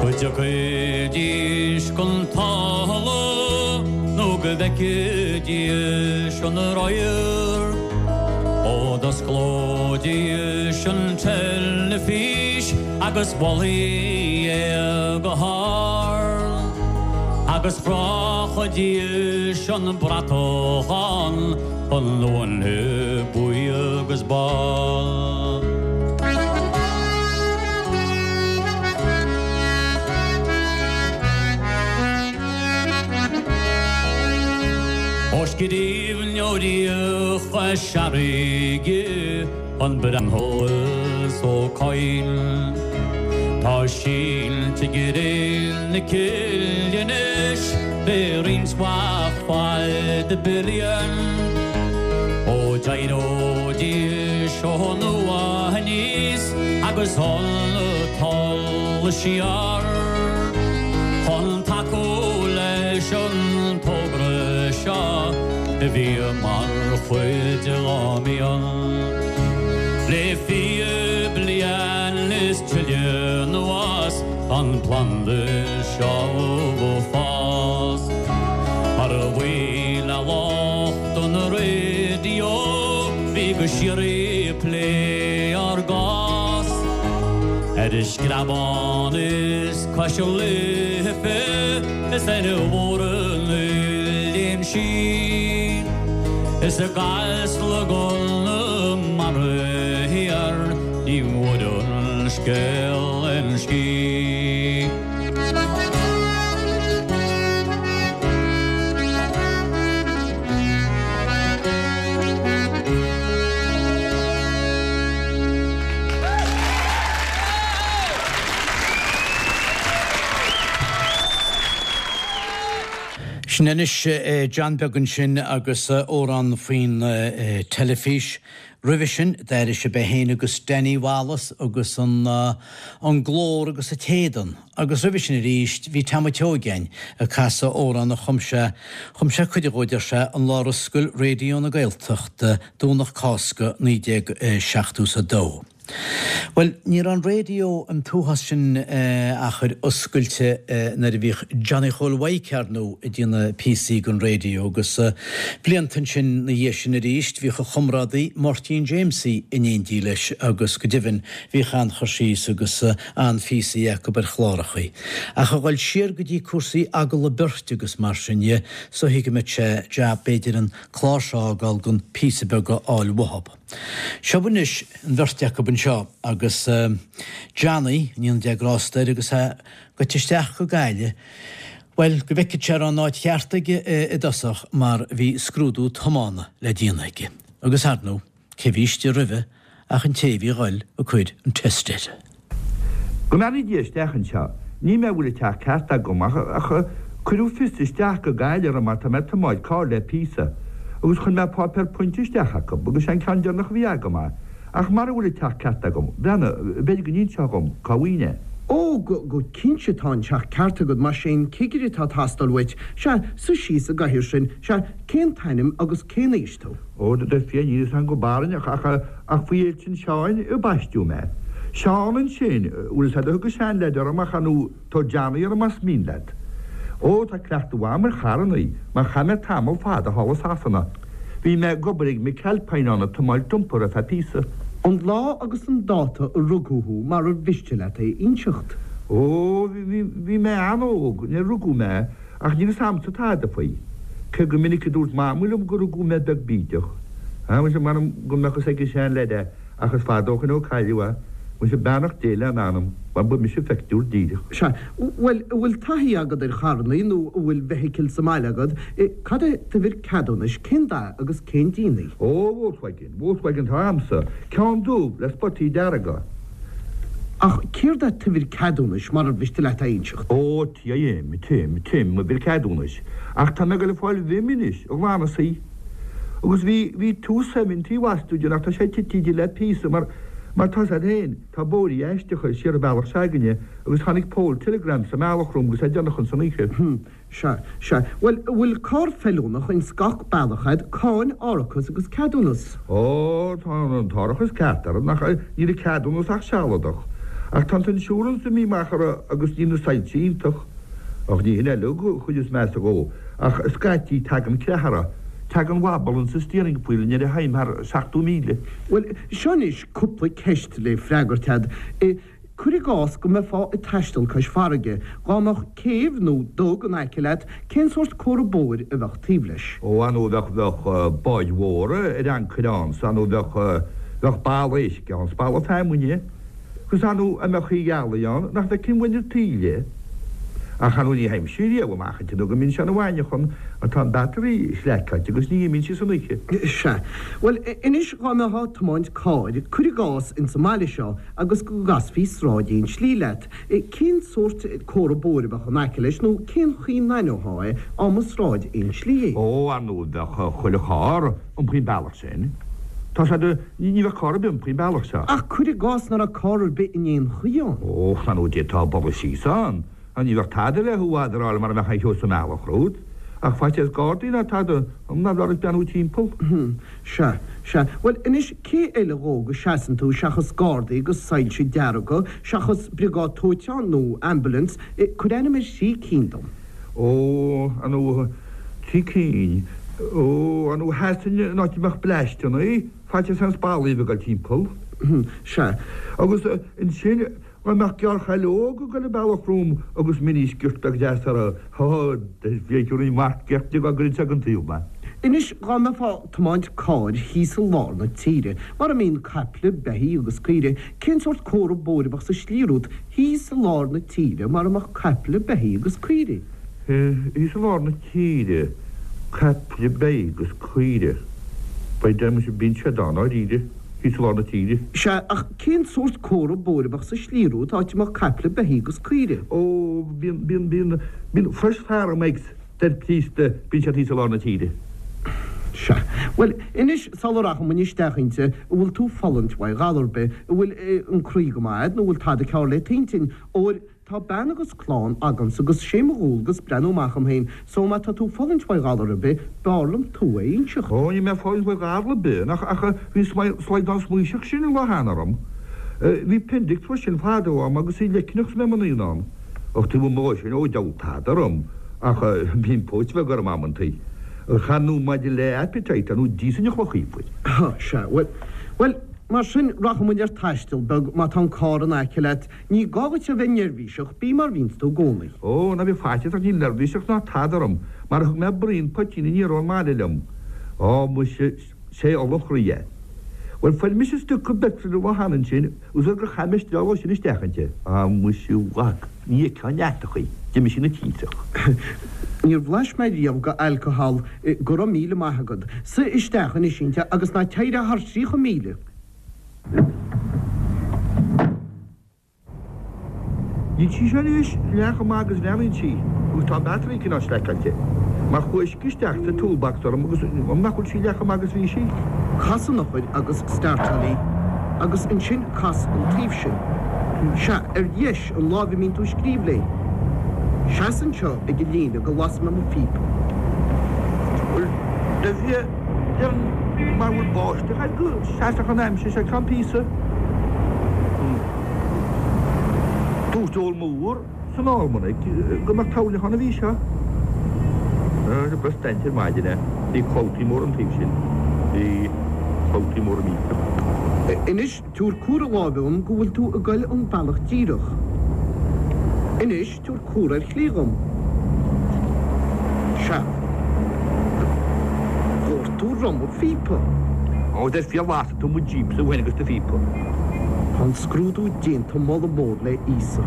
S12: Go dtiocfaidís chun talamh nó go bhfeicfidís an radharc. Ó d'osclóidís an teilifís agus mholfaí é go hard. Agus chrochfaidís an bratach ann. An uaine buí agus bán. Ó scríbhneoirí Chois Fharraige, an Breathnach is Ó Cadhain. Tá sínte i gcré na cille anois le roinnt mhaith fada bliain. Ó d'éireoidís ó nua aníos agus an talamh siar chun tacú leis an togra seo a bhí mar chuid dá mian. Le 20 bliain is tuilleadh anuas An planda seo ag fás mar a bhuí le lucht an raidió bhí go síoraí ag plé ár gcás ar an Screabán is cois Life is ar bharr an Oileáin Sín is i gCasla gConamara thiar. Ní bhfuair an scéal aon scíth.
S1: Sin anois John Beag ansin agus amhrán faoin teilifís. Roimhe sin, d'airigh sibh é féin agus Danny Wallace agus an an glór agus an t-éadan. Agus roimhe sin arís, bhí Tom a' tSeoigeáin ag casadh amhrán a chum sé, chum sé cuid dhó, deir sé, an lá ar oscail Raidió na Gaeltachta, Domhnach Cásca 1972. Bhuel, ní raibh an raidió an t-uafás sin achair oscailte nuair a bhíodh Johnny Chóil Mhaidhc, ar ndóigh, ag déanamh píosaí don raidió agus blianta ansin 'na dhiaidh sin arís bhíodh a chomrádaí Máirtín Jamesie in éindí leis agus go deimhin bhíodh an-chur síos agus an-phíosaí acu ar chlárachaí. Ach a dhul siar go dtí cúrsaí agallamh beirte agus mar sin dhe, is dóichí go mbeadh sé jab b'fhéidir an clár seo a fhágáil gan píosa beag a fháil uathub. Seo anois an bheirt acu anseo agus Johnny, go ndéana Dia grásta air, agus é goite isteach go Gaillimh, bhuel, go bhfeicfeadh sé an raibh an áit cheart aige i dtosach mar bhí scrúdú tiomána le déanamh aige. Agus ar ndóigh, cé bhí istigh roimhe ach an té a bhí a dhul ag cur an test air.
S11: Go mbeannaí Dia isteach anseo. Ní mé a bhfuil an teach ceart agam ach ach cuireadh fios isteach go Gaillimh orm mar tá mé ag tiomáint carr le píosa agus chuir mé páipéar pointe isteach acu agus sé an ceann deireanach a bhí agam é. Ach mara bhfuil an teach ceart agam, breathnaigh, b'fhéidir go n-inseofá dhom cá bhfaighinn é.
S13: Ó, go, go cinnte tá an teach ceart agat, más é an cigire atá ag teastáil uait, sea, suigh síos i gcathaoir sin, sea, cén t-ainm agus cén aois tú?
S11: Ó, a Dhia, níl fhios agam go barainneach ach, ach faoi Fhéilte an Sheáin a baisteadh mé. Seán ansin, bhfuil fhios a'd a thug an seanleaid orm ach ar ndóigh tabhair Johnny orm más mian leat. Ó, tá cleachtadh mhaith a'm ar charrannaí, mar chaith mé tamall fada thall i Sasana. Bhí mé ag obair ag McAlpine ann ag tiomáint dumper ar feadh píosa.
S13: An lá agus an dáta a rugadh thú marar mhiste leat é a inseacht.
S11: Ó, bhí, bhí, bhí mé an-óg nuair a rugadh mé Ach níl fhios a'msa tada faoi. Cé gur minic a dúirt Mamaí liom go rugadh mé beag bídeach. Á, muise, m'anam go mbeadh fhios ag an seanleaid é, ach is fada ó shoin ó cailleadh é.
S14: Muise beannacht Dé lena anam, mar ba mise a phictiúr díreach.
S13: Sea. Bhuel, an bhfuil taithí agat ar charrannaí nó an bhfuil vehicle sa mbaile agat? Cad é d'uimhir ceadúnais, cén dath agus cén díon í?
S14: Ó, Volkswagen, Volkswagen atá a'msa, ceann dubh le spotaí dearga.
S13: Ach céard é t'uimhir ceadúnais, marar mhiste leat a inseacht?
S14: Ó, TIM, Tim, Tim, m'uimhir ceadúnais. Ach tá mé ag goil ag fáil VIM anois, a ghlanadh í. Agus bhí, bhí 270 bhastúide ach tá sé tití di le píosa mar, mar tá's a'd féin, tá bóithrí aisteacha siar an bealach s'againne agus tháinig poll telegram sa mbealach romham agus é déanach ins an oíche.
S13: Hm, sea, sea. Bhuel, an bhfuil carr feiliúnach ins gach bealach a'd, cáin, árachas agus ceadúnas?
S14: Ó, tá an t-árachas ceart orm, ach níl an ceadúnas ach sealadach. Ach tá an t-insurance imithe amach orthu agus níl na soilse iontach. Ach ní hin uilig an chuid is measa dhó, ach scaití tagann creathadh orthu, tagann wobble insa steering wheel nuair a théim thar 70,000.
S13: Bhuel, seo anois cúpla ceist le freagairt a'd. Cuir i gcás go mbeifeá ag taisteal cois farraige, dhá mbeadh céibh nó dug in aice leat, cén sórt comhartha bóthair a bheadh taobh leis?
S14: Ó, ar ndóigh bheadh, bheadh báid mhóra ar ancaire ann, 's ar ndóigh bheadh, bheadh balla éisc ann, 's balla feamainne. Agus ar ndóigh dá mbeadh oíche ghealaí ann nach bhfeicfinn uainn an taoille. Ach ar ndóigh ní théimse riamh amach inti nó go mbíonn sé ina mhaidneachan mar tá an battery sleaiceáilte agus ní imíonn sí san oíche.
S13: Sea. Bhuel, anois dhá mbeifeá ag tiomáint cairr, cuir i gcás, ins an mbaile seo agus go gcasfaí sráid aon slí leat, cén sórt comhartha bóthair a bheadh in aice leis nó cén chaoi n-aithneofá é á mba sráid aon slí é?
S14: Ó, ar ndóigh bheadh chuile charr iompaithe an bealach sin. Tá sé de, ní bheadh carr ar bith iompaithe an bealach seo.
S13: Ach cuir i gcás nach raibh carr ar bith in aon chaoi ann.
S14: Ó, ar ndóigh d'fhéadfá bogadh síos ann. Ach ní bheadh tada le thú a adráil mara mbeadh aon cheo sa mbealach romhat. Ach faitíos gardaí ná tada, ná bheadh ort beannú timpeall.
S13: Hm, sea, sea. Bhuel, anois, cé eile dhó go seasann tú seachas gardaí agus soilse dearga, seachas briogáid dóiteáin nó ambulance, cuir ainm ar thrí cinn dom.
S14: Ó, ar ndóigh, trí cinn. Ó, ar ndóigh, sheasfainn in áit a mbeadh bleaisteanna, faitíos aon spallaí a bheith ag dul timpeall.
S13: Sea.
S14: Agus ansin, dá mbeadh gearrchaile óg ag dul an bealach romham agus mini-skirt beag deas uirthi, há, d'fhéadfainn marc ceart di dá gcuirfinn sé den taobh mé.
S13: Anois, dá mbeifeá ag tiomáint cairr thíos i lár na tíre, mar a mbíonn caiple, beithígh agus caoirigh, cén sórt comhartha bóthair a bheadh sa slí romhat Thíos i lár na tíre mar a mbeadh caiple, beithígh agus caoirigh.
S14: Thíos i lár na tíre, caiple, beithígh agus caoirigh. By damn muise bíonn siad ann, dáiríre, thíos i lár na tíre.
S13: Sea, ach cén sórt comhartha bóthair a bheadh sa slí romhat áit a mbeadh caiple, beithígh agus caoirigh?
S14: Ó, bíonn, bíonn, bíonn, bíonn Fresh Farm Eggs. Deir Críosta, bíonn siad thíos i lár na tíre.
S13: Sea. Bhuel, anois, sula rachaidh muinn isteach inti, an bhfuil tú fulaingt uaidh ghalar ar bith, an bhfuil an croí go maith a'd, nó an bhfuil tada cearr le t'intinn? Óir, tá bean agus clann agamsa agus sé mo dhualgas breathnú amach dhom féin, so má tá tú fulaingt uaidh ghalar ar bith, b'fhearr liom tú a inseacht.
S14: Ó, níl mé fulaingt uaidh ghalar ar bith, ach, ach, bhí an slaghdán smaoiseach sin an lá cheana orm. Bhí appendix freisin fadó a'm agus í leicneach 's mé i mo naíonán. Ach taobh amuigh dhó sin, ó diabhal tada orm ach bíonn póit bheag orm amantaí. Ach ar ndóigh maidir le appetite, ar ndóigh d'íosfainn an chloch iufair.
S13: Á, sea, bhuel, bhuel, mar sin, rachaidh muid ar taisteal beag má tá an carr in aice leat. Ní gá dhuit a bheith neirbhíseach, bí mar bhíonns tú i gcónaí.
S14: Ó, ná bíodh faitíos ort, níl neirbhíseach ná tada orm, mar thug mé braon poitín aniar ón mbaile liom. Á, muise, 'sé ola an chroí é. Bhuel, fuair mise stuca peitril an lá cheana ansin, agus gur chaith mé steall ó sin isteach inti. Á, muise, a mhac, ní fheicfeá an deatach í, d'imigh sí ina tintreach.
S13: Níor bhlais mé riamh go alcohol, go raibh míle maith agat. Suigh isteach anois inti agus ná téir thar 30,000.
S14: Níl sí seo anois leath chomh maith agus bhreathnaíonn sí, agus tá an battery cineál sleaiceáilte, mar chuaigh uisce isteach sa toolbox orm agus nach bhfuil sí leath chomh maith agus bhí sí.
S13: Cas an eochair agus startáil í, agus ansin cas an taobh sin. Sea, ar dheis, an láimh a mbíonn tú ag scríobh léi. Seas anseo ag an líne go lasfaidh mé mo phíopa.
S14: Bhuel, do bhí. Déarfainn mar bhfuil báisteach air go seasfadh an aimsir seo ceann píosa. Dúirt Eoin Mór san Almanac go mbeadh toirneach ann an mhí seo. Bhí staint ar maidin é. Bhí clabhtaí mór an taobh sin. Bhí clabhtaí mór millteach.
S13: Anois tabhair comhartha láimhe dhom go bhfuil tú ag goil an bealach díreach. Anois tabhair comhartha ar chlé dhom. Sea. Dhoirt tú ruma phíopa.
S14: Ó, dar fia lasfaidh tú mo Jeep-sa uainn agus do phíopa.
S13: Tá an scrúdú déanta moladh mór le Íosa.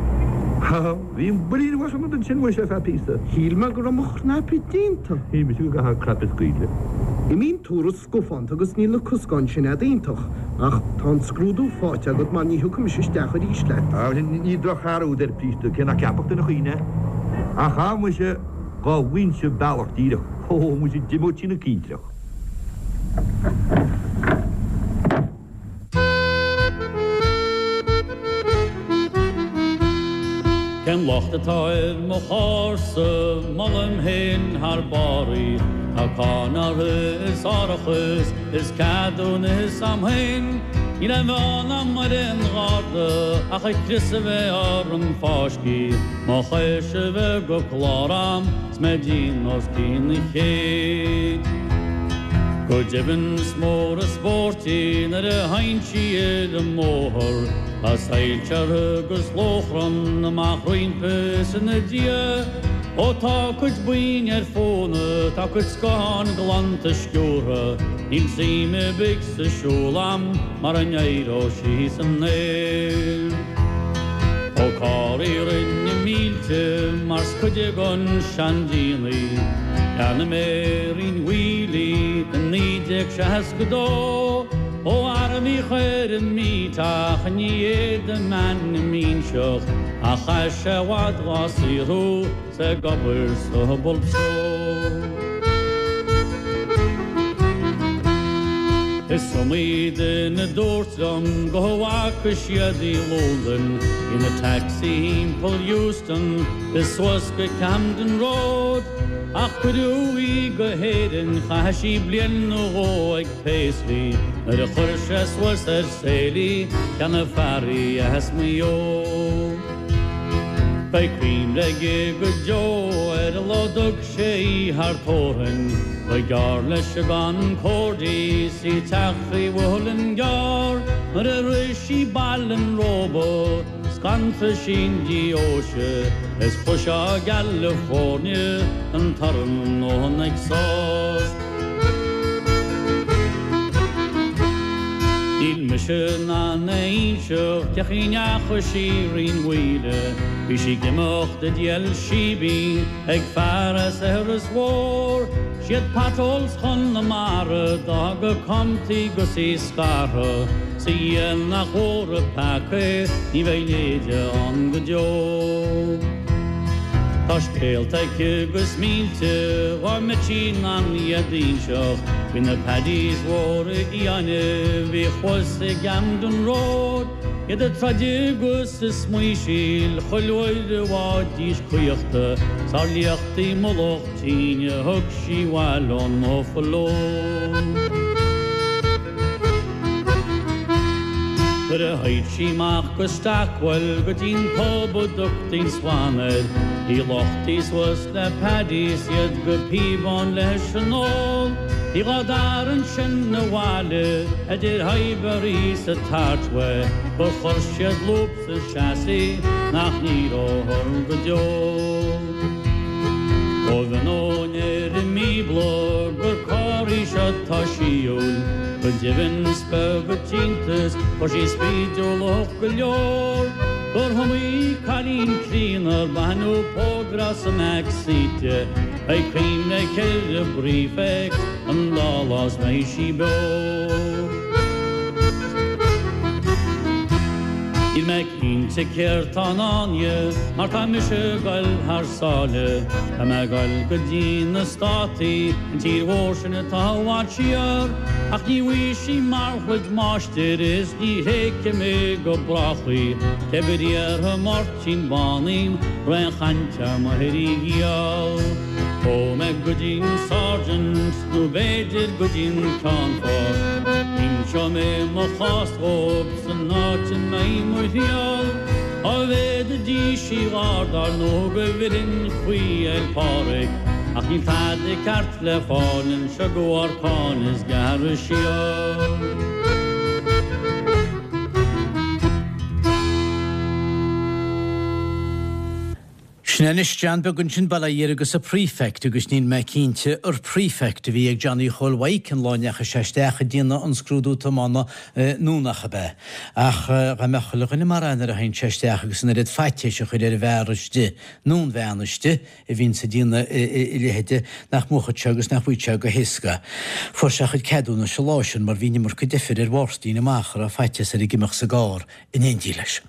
S14: Ha, bhí an builín uait an ansin muise ar feadh píosa.
S13: Shíl mé go raibh mo chnaipe déanta.
S14: Shíl mise go gcaithfeá cnaipe a scaoileadh.
S13: Imíonn turas scafánta agus níl na coscáin sin a'd iontach, ach tá an scrúdú faighte agat mar ní thiocfaidh mise isteach arís leat.
S14: Á, ní drochfhear úd ar Priest, cé nach gceapfadh duine choíche é. Ach á, muise, dhá bhfaighinnse bealach díreach, ó, muise, d'imeodh trína tintreach.
S12: Cén locht atá ar mo charr-sa, molaim féin thar barr í. Tá cáin uirthi is árachas is ceadúnas a'm féin. Níl aon bhean a'm ar aon gharda ach an crios a bheith orm fáiscthe. Mo chois a bheith go clár a'm 's mé dian os cionn an chéid. Go deimhin is mór an spórt í nuair a théann sí ar an mbóthar, tá soilse uirthi agus lóchrann amach roimpi is ina diaidh. Ó tá a cuid boinn ar fónamh, tá a cuid scáthán glanta sciúrtha, níl suim ar bith sa siúl a'm mara n-éireoidh sí san aer. Ó carr í rinne mílte mar 's cuid den seandíon í. Cheannaigh mé i Rinn Mhaoile í i 1962 ó fhear a bhíodh ar an meet ach ní fhéadaim m'ainm a inseacht ach chaith sé i bhfad dhá saothrú 's ag obair sa Bulb Store. Is iomaí duine a dúirt liom go bhfaca siad í i Londain ina taxi thimpeall Euston is suas go Camden Road ach cuireadh í go hÉirinn chaith sí bliain nó dhó ag Paisley nuair a chuir sé suas ar sale í cheannaigh fear í as Maigh Eo. Beidh cuimhne aige go deo ar an lá dtug sé í thar tórainn, ba ghearr leis an gConcorde 's í ag teacht faoi Mhuileann gCearr nuair a shroich sí Baile an Róba. Scanraigh sí an deoise is chloisfeá i gCalifornia an torann ón exhaust. Níl mise in ann a inseacht cén chaoi a ndeachaigh sí Rinn Mhaoile, bhí sí ag imeacht i dtí El Shebeen ag fear as Iorras Mhór. Siad potholes Chonamara d'fhág a cumtha í 'gus í scartha, 's a Dhia nach mhór an peaca é, ní bheidh a leithéide ann go deo. Tá scéalta aici 'gus mílte dhá mbeadh sí in ann iad a inseacht faoi na Paddies mhóra fhiáine a bhí thuas i gCamden Road, iad ag troid agus ag smaoisíl chuile uair a bhfaighidís caochta 's ár liachtaí mullach tine a thug sí abhaile ón mBuffalo. Nuair a théid sí amach go Stockwell go dtí'n pub a dtugtaí an Swan air, bhí luchtaí suas le Paddies iad go píobán leis an ól. Bhí dhá dtarraingt sin abhaile idir Highbury 's an Archway gur chuir siad lúb sa chassis nach n-éireofar go deo. Ó bhí ón ar an mBíobla gur carr í seo atá síúil, go deimhin is beag an t-iontas fuair sí spídiúlacht go leor, gur iomaí cailín críonna ar baineadh póg as an mback seat di, beidh cuimhne aici ar an bprefect an dá lá is mbeidh sí beo. Níl mé cinnte céard tá i ndán di mar tá mise ag goil thar sáile. Tá mé ag goil go dtí na Státaí, an tír mhór sin atá i bhfad siar. Ach ní bhfaighidh sí mar chuid máistir is ní thréigfidh mé go brách í. Cé bith iarrfaidh Máirtín Bán í, raon chaint ar mo ghiall. Ó mé go dtí an Sergeant nó b'fhéidir go dtí an Ceannfort, inseoidh mé mo chás dhóibh san áit a mbeidh mo thriall. Dá bhféadfaidís í dh'fháil dar ndóigh go bhfillfinn faoi Fhéil Pádraig, ach níl tada ceart le fáil anseo de bharr cáin is gearradh siar.
S1: Sin é anois John Beag ansin, bail ó Dhia air agus a Prefect agus níl mé cinnte ar Prefect a bhí ag Johnny Chóil Mhaidhc an lá a ndeachaigh sé isteach ag déanamh an scrúdú tiomána nó nach ab ea. Ach dá mbeadh chuile dhuine mar é nuair a théann sé isteach agus an oiread faitíos a chur ar an bhfear istigh nó an bhean istigh a bhíonns ag déanamh a leithéide nach mbuafadh sé agus nach bhfaigheadh sé go héasca. Fuair sé a chuid ceadúnais an lá sin mar bhí an iomarca deifir ar Mháirtín amach a raibh faitíos air ag imeacht sa gcarr in éindí leis.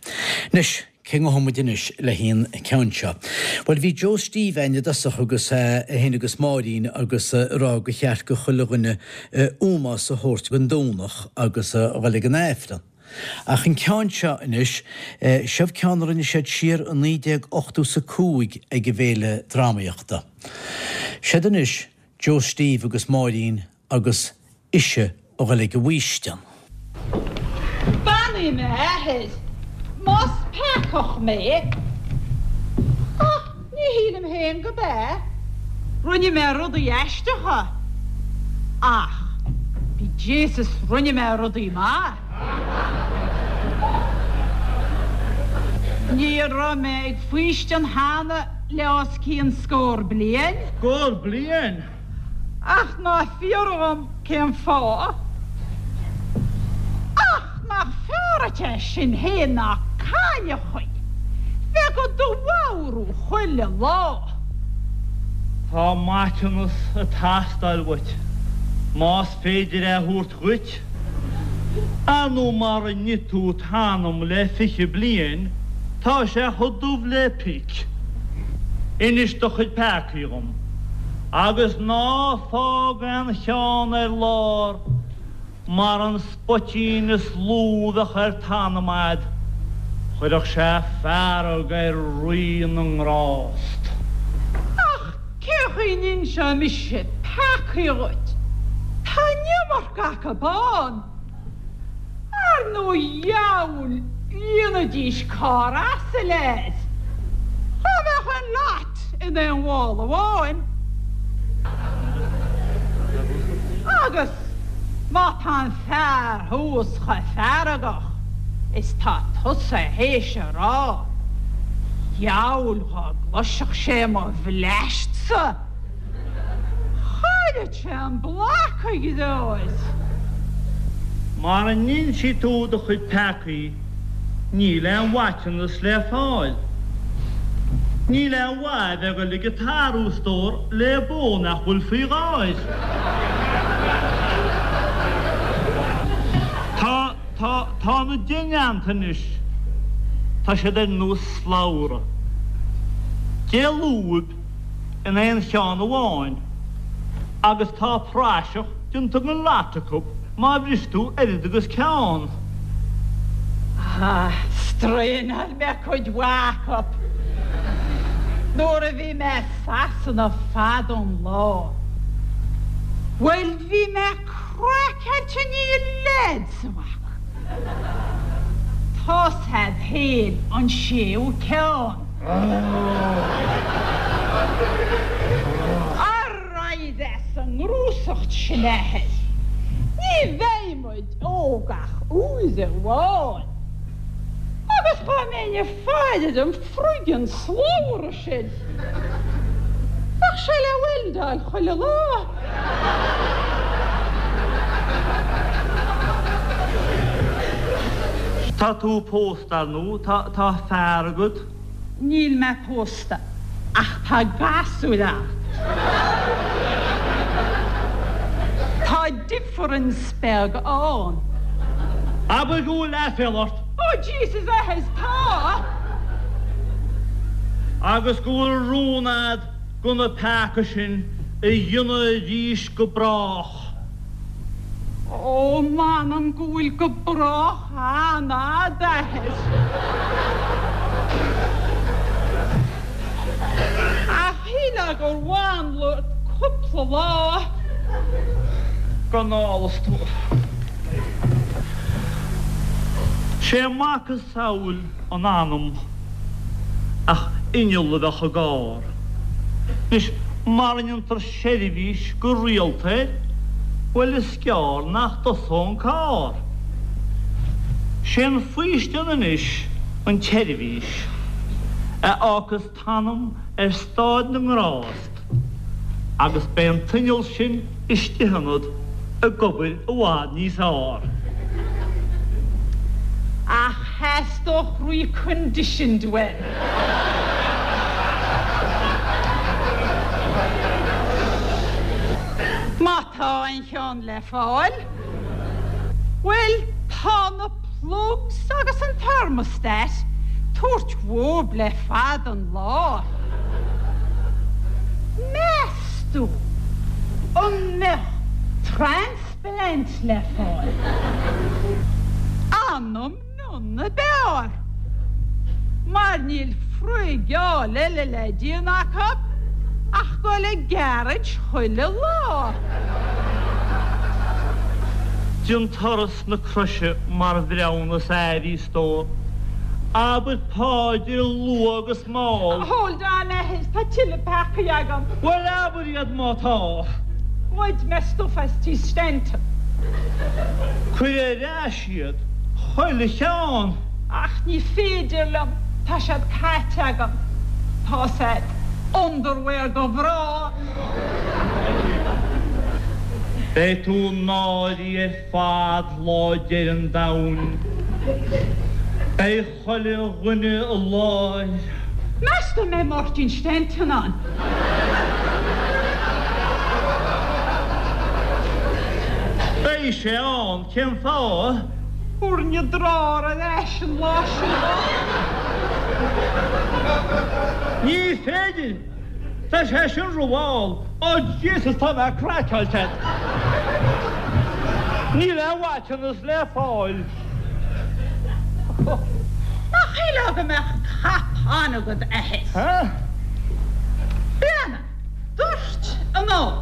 S1: Anois. Cé ngabhfaidh muid anois le haghaidh an ceann seo? Bhuel, bhí Joe Steve a'inn i dtosach agus é féin agus Máirín agus a rá gur cheart go chuile dhuine ómós a thabhairt don Domhnach agus a dhul ag an Aifreann. Ach an ceann seo anois, seo ceann a rinne siad siar i 1985 ag an bhFéile Drámaíochta. Siad anois Joe Steve agus Máirín agus ise a dhul ag an bhfaoistean.
S3: Beannaigh mé, a Athair, más peacach mé, ach ní shílim féin go b'ea. Rinne mé rudaí aisteacha, ach be Jaysus rinne mé rudaí maith. Ní raibh mé ag faoistean cheana le os cionn scór bliain.
S2: Scór bliain?
S3: Ach ná fiafraigh dhom cén fáth. Ach nach fearr dhuit é sin féin ná cailleachaí bheith do do mharú chuile lá.
S2: Tá maiteanas ag teastáil uait, más féidir é a thabhairt dhuit. Ar ndóigh mara nigh tú t'anam le 20 bliain, tá sé chomh dubh le pic. Inis do chuid peacaí dhom. Agus ná fág aon cheann ar lár, mar an spoitín is lú a bheadh ar t'anam a'd, chuirfeadh sé fearg ar Rí na nGrást.
S3: Ach cén chaoi n-inseoidh mise peacaí dhuit? Tá an iomarca acu ann. Ar ndóigh dheabhail líonfaidís carr asail air. Dhá mbeadh an lot in aon mhála amháin. Agus má tá an fear thuas chomh feargach is tá tusa théis a rá, dheabhail dhá gcloisfeadh sé mo bhleaist-sa. Chaillfeadh sé an bloc, a dheartháir.
S2: Mara n-insí tú do chuid peacaí níl aon mhaiteanas le fáil. Níl aon mhaith a bheith ag dul ag an t-athrú, a stór, le bó nach bhfuil faoi gháir. Tá, tá, tá na deighneanta anois, tá siad ar nós slabhra. 10 lúib in aon cheann amháin agus tá praiseach déanta den lot acu má bhris tú oiread agus ceann.
S3: Ah, straidhneáil mé cuid mhaith acu nuair a bhí mé i Sasana fada an lá. Bhuel, bhí mé craiceáilte i ndiaidh leads a bheith acu. Tá's a'd féin an séú ceann. Ar aghaidh as an ngnúsacht sin, a Athair. Ní bheidh muid óg ach uair amháin. Agus dhá mbeinn ag faire ar an friggin slabhra sin, bheadh sé le weldáil chuile lá.
S2: Tá tú pósta, ar ndóigh. Tá fear agat?
S3: Níl mé pósta, ach tá gasúir a'm. Tá difference beag ann.
S2: Abair go bhfuil aiféala ort.
S3: Oh Jesus, a Athair, tá!
S2: Agus go bhfuil rún a'd de na peacaí sin a dhéanamh arís go brách.
S3: Ó, m'anam go bhfuil go brách an-fhada, a Athair. Ach shílfeá gur mhanla ort cúpla lá.
S2: Gan ál, a stór. Sé macasamhail an anam ach inneall a bheadh i gcarr. Anois, mara ndéantar seirbhís go rialta air, bhuel is gearr nach dtosóidh an carr. Sé an faoistean anois an tseirbhís. A fhágfas t'anam ar stáid na ngrást agus beidh an t-inneall sin istigh ionat ag obair i bhfad níos fhearr.
S3: Ach theastódh reconditioned uaim. Má tá aon cheann le fáil, bhuel, tá na plugs agus an thermostat tabhairt uathub le fada an lá. Meas tú an mbeadh transplant le fáil? Anam mion ab fhearr, mar níl frigeáil eile le déanamh acu ach dul ag garage chuile lá.
S2: Déan turas na croise mar bhreithiúnas air, a stór. Abair páidir luath agus mall.
S3: Hold on, a athair, tá tuilleadh peacaí agam.
S2: Bhuel, abair iad má tá.
S3: Ghoid mé stuif as tí Stanton.
S2: Cuir ar ais iad, chuile cheann.
S3: Ach ní féidir liom, tá siad caite agam. Tá's a'd, underwear do mhná.
S2: Beidh tú náirithe ar fad lá deireadh an domhain. Beidh chuile dhuine i láthair.
S3: Meas tú an mbeidh Máirtín Stanton ann?
S2: Beidh sé ann, cén fáth?
S3: Thabharfainn an drár ar ais an lá sin dó.
S2: Ní féidir! Tá sé sin rómhall. Oh Jesus, tá mé craiceáilte. Níl aon mhaiteanas le fáil.
S3: Nach shílfeá go mbeadh cap an-agat, a athair? Breathnaigh, dúirt anall.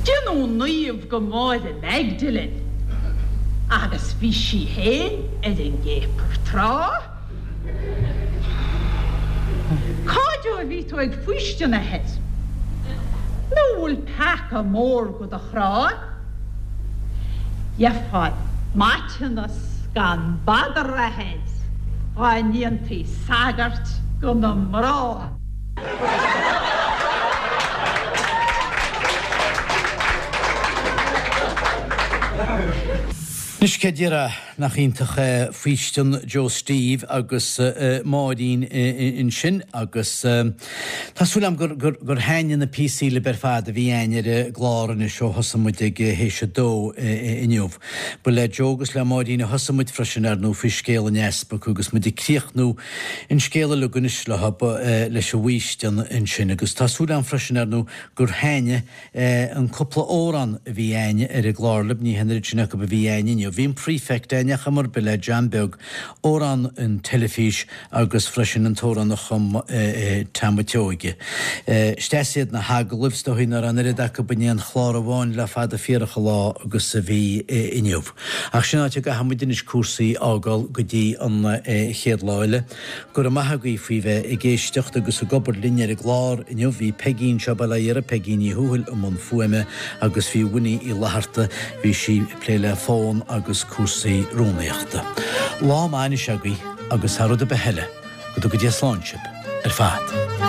S3: Déanadh naomh go Máire Magdalene agus bhí sí féin ar an gcéapar tráth. Cá deo a bhí tú ag faoistean, a athair? Nó bhfuil peaca mór go do chrá? Gheofá maiteanas gan badar, a athair, dhá ndéantaí sagart go na mná.
S1: Anois cé déarfá Nach iontach é faoistean Joe Steve agus Máirín ansin agus tá súil agam gur gur thaitnigh na píosaí libh ar fad a bhí againn ar an gclár anois ó thosaigh muid ag théis a dó inniu. Ba le Joe agus le Máirín a thosaigh muid freisin ar ndóigh faoi scéal an easpaig agus muid ag críochnú an scéal uilig anois leo leis an bhfaoistean ansin agus tá súil agam freisin ar ndóigh gur thaitnigh An cúpla amhrán a bhí a'inn ar an gclár libh, ní hin an oiread sin acu a bhí a'inn inniu. Bhí an Prefect a'inn ar chuma ar bith le John Beag, amhrán an teilifís agus freisin an t-amhrán a chum Tom a' tSeoige. Is deas iad na hagallaimh, is dóigh nach raibh an oiread acu in aon chlár amháin le fada fíorach an lá agus a bhí inniu. Ach sin áit a gcaithfidh muid anois cúrsaí a fhágáil go dtí an chéad lá eile. Go raibh maith agaibh faoi bheith ag éisteacht agus ag obair linn ar an gclár inniu. Bhí Peigí anseo, bail ó Dhia uirthi, Peigí Ní Thuathail i mbun fuaime agus bhí Winnie Uí Fhlatharta, bhí sí ag plé le fón agus cúrsaí rúnaíochta. Lá maith anois agaibh agus thar rud ar bith eile, go dtuga Dia slán sibh ar fad.